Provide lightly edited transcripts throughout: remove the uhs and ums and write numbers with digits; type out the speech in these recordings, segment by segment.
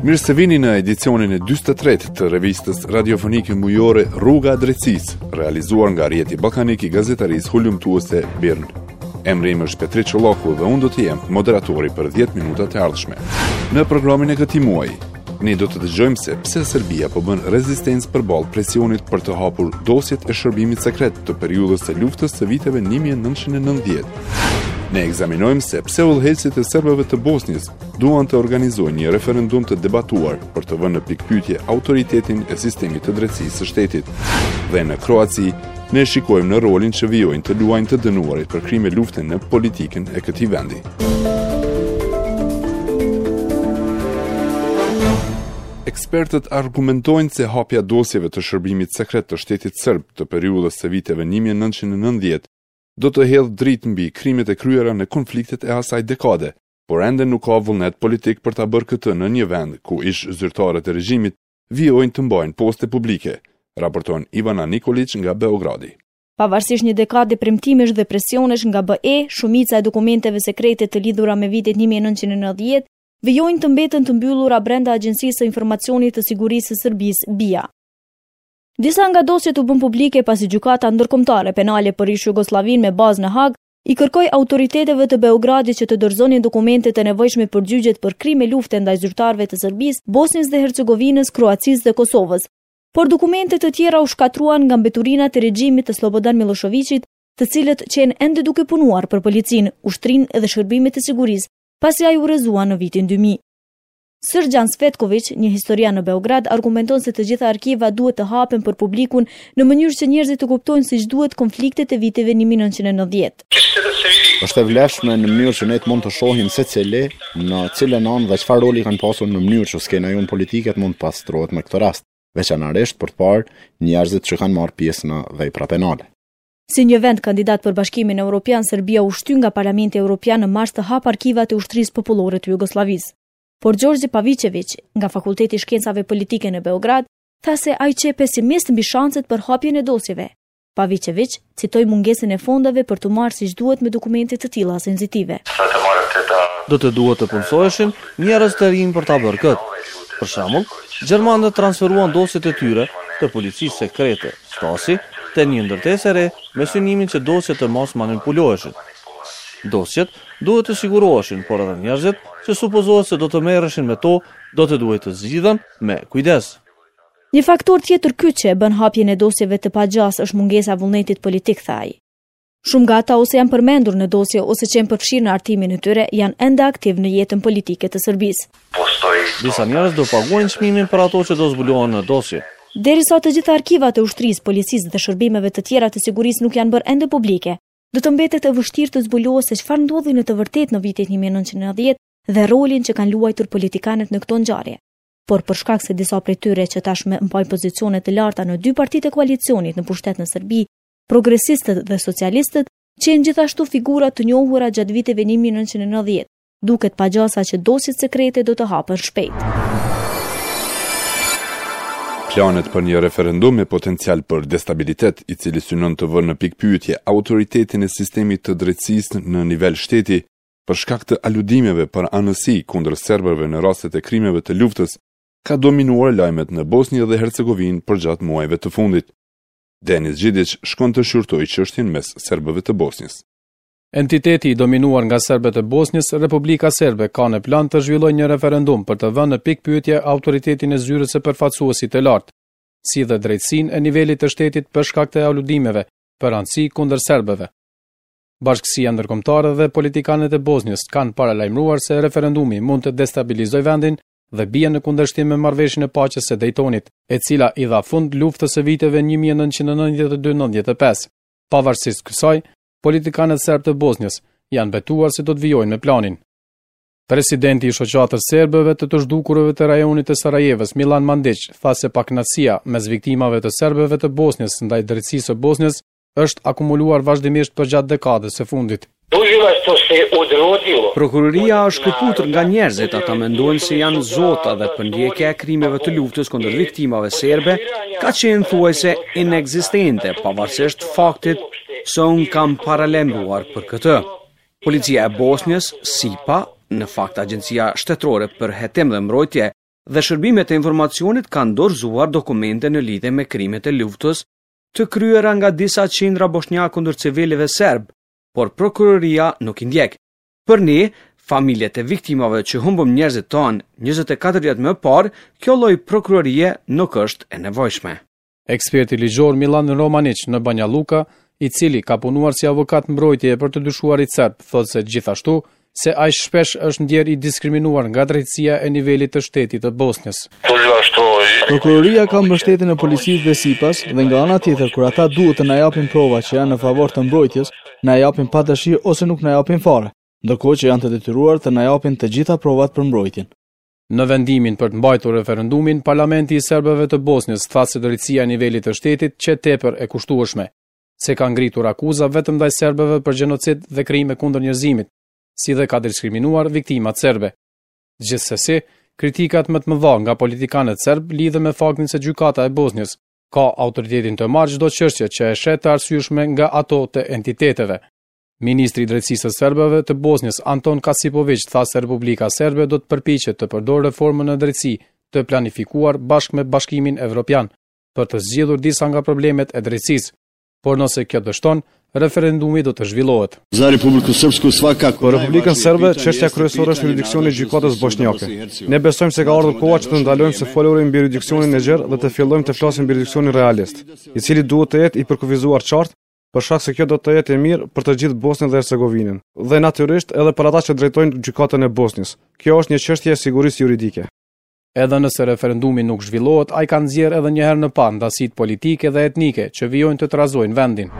Mirë se vini në edicionin e 43 të revistës radiofonike mujore Rruga e Drejtësisë, realizuar nga Rrjeti Ballkanik i Gazetarisë Hulumtuese BIRN. Emri im është Petrit Çollaku dhe unë do të jem moderatori për 10 minutat e ardhshme. Në programin e këtij muaji, Ne do të dëgjojmë se pse Serbia po bën rezistencë përballë presionit për të hapur dosjet e shërbimit sekret të periudhës së luftës së viteve 1990. Ne ekzaminojmë se pse udhëheqësit e serbëve të Bosnjës duan të organizojnë një referendum të debatuar për të vënë në pikëpyetje autoritetin e sistemit të drejtësisë së shtetit. Dhe në Kroaci, ne shikojmë në rolin që vijojnë të luajnë të dënuarit për krime lufte në politikën e këtij vendi. Ekspertët argumentojnë se hapja e dosjeve të shërbimit sekret të shtetit serb të periudhës së viteve 1990 do të hedhë dritë mbi krimet e kryera në konfliktet e asaj dekade, por ende nuk ka vullnet politik për ta bërë këtë në një vend ku ish-zyrtarët e regjimit vijojnë të mbajnë poste publike, raporton Ivana Nikoliq nga Beogradi. Pavarësisht një dekade premtimesh dhe presionesh nga BE, shumica e dokumenteve sekrete të lidhura me vitet 1990 vijojnë të mbeten të mbyllura brenda Agjencisë së Informacionit të Sigurisë së Serbisë, BIA. Disa nga dosjet u bënë publike pasi Gjykata Ndërkombëtare Penale për ish-Jugosllavinë me bazë në Hagë i kërkoi autoriteteve të Beogradit që të dorëzonin dokumentet e nevojshme për gjyqet për krime lufte ndaj zyrtarëve të Serbisë, Bosnjës dhe Hercegovinës, Kroacisë dhe Kosovës. Por dokumente të tjera u shkatërruan nga mbeturinat e regjimit të Slobodan Millosheviqit, të cilët qenë ende duke punuar për policinë, ushtrinë dhe shërbimet e sigurisë, pasi ai u rrëzua në vitin 2000. Sërgjan Svetkoviq, një historian në Beograd, argumenton se të gjitha arkivat duhet të hapen për publikun në mënyrë që njerëzit të kuptojnë siç duhet konfliktet e viteve 1990. Është e vlefshme në mënyrë që ne të mund të shohim secili në cilën anë dhe çfarë roli kanë pasur në mënyrë që skena jonë politike të mund të pastrohet me këtë rast, veçanërisht për të parë njerëzit që kanë marrë pjesë në vepra penale. Si një vend kandidat për Bashkimin Europian, Serbia u shty nga Parlamenti Europian në mars të hapë arkivat e Ushtrisë Popullore të Jugosllavisë. Por Gjorgji Paviçeviq, nga Fakulteti i Shkencave Politike në Beograd, tha se ai qe pesimist mbi shanset për hapjen e dosjeve. Paviçeviq citoi mungesën e fondeve për t'u marrë siç duhet me dokumente të tilla sensitive. Do të duhet të punësoheshin njerëz të rinj për ta bërë këtë. Për shembull, gjermanët transferuan dosjet e tyre të policisë sekrete, Stasi, te një ndërtesë e re me synimin që dosjet të mos manipuloheshin. Dosjet duhet të siguroheshin, por edhe njerëzit që supozohet se do të merreshin me to, do të duhej të zgjidhen me kujdes. Një faktor tjetër kyç që e bën hapjen e dosjeve të pagjasë është mungesa e vullnetit politik, tha ai. Shumë nga ata ose janë përmendur në dosje ose qenë përfshirë në hartimin e tyre, janë ende aktivë në jetën politike të Serbisë. Disa njerëz do paguajnë çmimin për ato që do zbulohen në dosje. Derisa të gjitha arkivat e ushtrisë, policisë dhe shërbimeve të tjera të sigurisë nuk janë bërë ende publike, do të mbetet e vështirë të zbulohet se çfarë ndodhi në të vërtetë në vitet 1990 dhe rolin që kanë luajtur politikanët në këto ngjarje. Por për shkak se disa prej tyre që tashmë mbajnë pozicione të larta në dy partitë e koalicionit në pushtet në Serbi, progresistët dhe socialistët, qenë gjithashtu figura të njohura gjatë viteve 1990, duket pa gjasa që dosjet sekrete do të hapen shpejt. Planet për një referendum me potencial për destabilitet, i cili synon të vërë në pikëpyetje autoritetin e sistemit të drejtësisë në nivel shteti, për shkak të aludimeve për anësi kundër serbëve në rastet e krimeve të luftës, ka dominuar lajmet në Bosnjë dhe Hercegovinë përgjatë muajve të fundit. Denis Gjidiq shkon të shqyrtojë çështjen mes serbëve të Bosnjës. Entiteti i dominuar nga serbët e Bosnjës, Republika Serbe ka në plan të zhvillojë një referendum për të vënë në pikëpyetje autoritetin e zyrës së përfaqësuesit të lartë, si dhe drejtësinë e nivelit të shtetit për shkak të aludimeve për anësi kundër serbëve. Bashkësia ndërkombëtare dhe politikanët e Bosnjës kanë paralajmëruar se referendumi mund të destabilizojë vendin dhe bie në kundërshtim me marrëveshjen e paqes së Dejtonit, e cila i dha fund luftës së viteve 1992-95. Pavarësisht kësaj, politikanët serbë të Bosnjës janë betuar se do të vijojnë me planin. Presidenti i Shoqatës Serbëve të të Zhdukurve të rajonit të Sarajevës, Milan Mandiq, tha se pakënaqësia mes viktimave të serbëve të Bosnjës ndaj drejtësisë së Bosnjës është akumuluar vazhdimisht përgjatë dekadës së fundit. Prokuroria është shkëputur nga njerëzit, ata mendojnë se janë zota dhe përndjekja e krimeve të luftës kundër viktimave serbe ka qenë thuajse inekzistente, pavarësisht faktit se unë kam paralajmëruar për këtë. Policia e Bosnjës, SIPA, në fakt Agjencia Shtetërore për Hetim dhe Mbrojtje. dhe shërbimet e informacionit kanë dorëzuar dokumente në lidhje me krimet e luftës të kryera nga disa qindra boshnjakë kundër civilëve serbë, por prokuroria nuk i ndjek. Për ne, familjet e viktimave që humbëm njerëzit tanë 24 vjet më parë, kjo lloj prokurorie nuk është e nevojshme. Eksperti ligjor Millan Romaniq në Banja Luka, i cili ka punuar si avokat mbrojtjeje për të dyshuarit serbë, thotë se gjithashtu se ai shpesh është ndjerë i diskriminuar nga drejtësia e nivelit të shtetit të Bosnjës. Prokuroria ka mbështetjen e policisë dhe SIPA-s dhe nga ana tjetër kur ata duhet të na japin prova që janë në favor të mbrojtjes, na japin pa dëshirë ose nuk na japin fare, ndërkohë që janë të detyruar të na japin të gjitha provat për mbrojtjen. Në vendimin për të mbajtur referendumin, Parlamenti i serbëve të Bosnjës tha se drejtësia e nivelit të shtetit qe tepër e kushtueshme, se ka ngritur akuza vetëm ndaj serbëve për gjenocid dhe krime kundër njerëzimit, si dhe ka diskriminuar viktimat serbe. Gjithsesi, kritikat më të mëdha nga politikanët serbë lidhen me faktin se gjykata e Bosnjës ka autoritetin të marrë çdo çështje që e sheh të arsyeshme nga ato të entiteteve. Ministri i Drejtësisë së Serbëve të Bosnjës, Anton Kasipoviq, tha se Republika Serbe do të përpiqet të përdorë reformën në drejtësi të planifikuar bashkë me Bashkimin Evropian për të zgjidhur disa nga problemet e drejtësisë. Por nëse kjo dështon, referendumi do të zhvillohet. Za Republiku Srpsku svakako Për Republikën Serbe, çështja kryesore është jurisdiksioni i gjykatës boshnjake. Ne besojmë se ka ardhur koha që të ndalojmë së foluri mbi jurisdiksionin e gjerë dhe të fillojmë të flasim mbi jurisdiksionin realist, i cili duhet të jetë i përkufizuar qartë, për shkak se kjo do të jetë e mirë për të gjithë Bosnjën dhe Hercegovinën, dhe natyrisht edhe për ata që drejtojnë gjykatën e Bosnjës. Kjo është një çështje e sigurisë juridike. Edhe nëse referendumi nuk zhvillohet, ai ka nxjerrë edhe një herë në pah ndasitë politike dhe etnike që vijojnë të trazojnë vendin.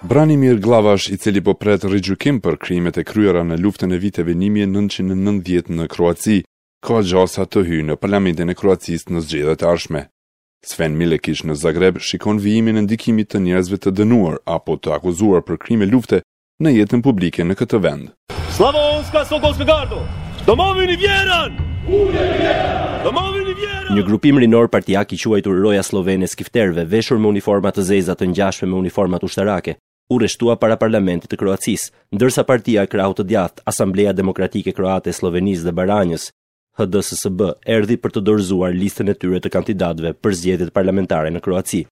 Branimir Glavash, i cili po pret rigjykim për krimet e kryera në luftën e viteve 1990 në Kroaci, ka gjasa të hyjë në Parlamentin e Kroacisë në zgjedhjet e ardhshme. Sven Milekiq në Zagreb shikon vijimin e ndikimit të njerëzve të dënuar apo të akuzuar për krime lufte në jetën publike në këtë vend. Slavonska Sokolska Gardo! Domovini vjeran! Domovini vjeran! Një grupim rinor partiak i quajtur Roja Sllovene e Skifterëve, veshur me uniforma të zeza të ngjashme me uniformat ushtarake, u rreshtua para parlamentit të Kroacisë, ndërsa partia e krahut të djathtë, Asambleja Demokratike Kroate e Sllovenisë dhe Baranjës, HDSSB, erdhi për të dorëzuar listën e tyre të kandidatëve për zgjedhjet parlamentare në Kroaci.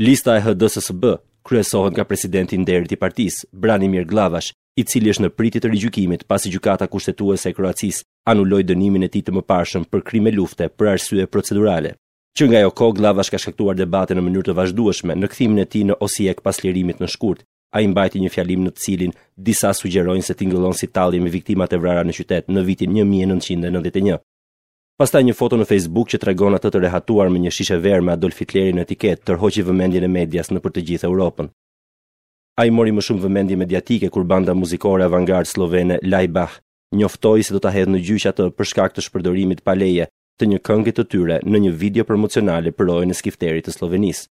Lista e HDSSB kryesohet nga presidenti i nderit i partisë, Branimir Glavash, i cili është në pritje të rigjykimit pasi Gjykata Kushtetuese e Kroacisë anuloi dënimin e tij të mëparshëm për krime lufte për arsye procedurale. Që nga ajo kohë Glavash ka shkaktuar debate në mënyrë të vazhdueshme në kthimin e tij në Osijek pas lirimit në shkurt, Ai mbajti një fjalim në të cilin disa sugjerojnë se tingëllon si tallje me viktimat e vrara në qytet në vitin 1991. Pastaj një foto në Facebook që tregon atë të rehatuar me një shishe verë me Adolf Hitlerin në etiketë tërhoqi vëmendjen e medias nëpër të gjithë Europën. Ai mori më shumë vëmendje mediatike kur banda muzikore avangardë sllovene Laibach njoftoi se do ta hedhë në gjyq atë për shkak të shpërdorimit pa leje të një kënge të tyre në një video promocionale për rojën e skifterit të Sllovenisë.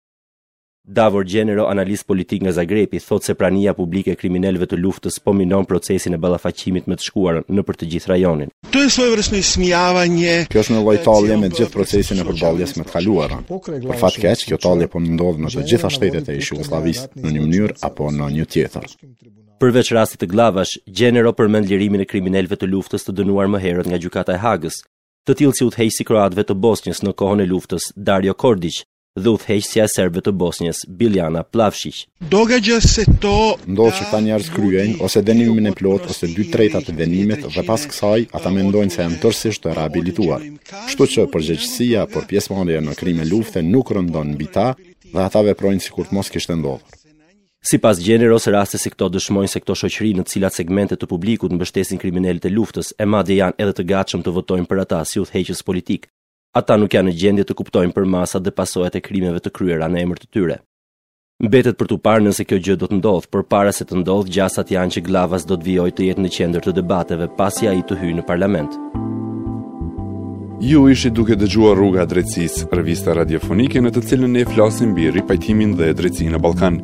Davor Gjenero, analist politik nga Zagrebi, thotë se prania publike e kriminelëve të luftës po minon procesin e ballafaqimit me të shkuarën nëpër të gjithë rajonin. To je svojevrsno ismijavanje. Kjo është një lloj tallje me gjithë procesin e përballjes me të kaluarën. Për fat keq, kjo tallje po ndodh në të gjitha shtetet e ish-Jugosllavisë, në një mënyrë apo në një tjetër. Përveç rastit të Glavash, Gjenero përmend lirimin e kriminelëve të luftës të dënuar më herët nga Gjykata e Hagës, të tillë si udhëheqësi i kroatëve të Bosnjës në kohën e luftës, Dario Kordiq, dhe udhëheqësja e serbëve të Bosnjës, Biljana Plavshiq. Događa se to Ndodh që këta njerëz kryejnë ose dënimin e plotë ose dy tretat e dënimit dhe pas kësaj ata mendojnë se janë tërësisht të rehabilituar. Kështu që përgjegjësia për pjesëmarrje në krime lufte nuk rëndon mbi ta dhe ata veprojnë sikur të mos kishte ndodhur. Sipas Gjeneros, raste si këto dëshmojnë se këto shoqëri në të cilat segmente të publikut mbështesin kriminelët e luftës e madje janë edhe të gatshëm të votojnë për ata si udhëheqës politikë, Ata nuk janë në gjendje të kuptojnë përmasat dhe pasojat e krimeve të kryera në emër të tyre. Mbetet për t'u parë nëse kjo gjë do të ndodhë, por para se të ndodhë, gjasat janë që Glavash do të vijojë të jetë në qendër të debateve pasi ai të hyjë në parlament. Ju ishit duke dëgjuar Rruga e Drejtësisë, revista radiofonike në të cilën ne flasim mbi ripajtimin dhe drejtësinë në Ballkan.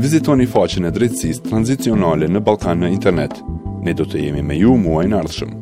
Vizitoni faqen e drejtësisë tranzicionale në Ballkan në internet. Ne do të jemi me ju muajin e ardhshëm.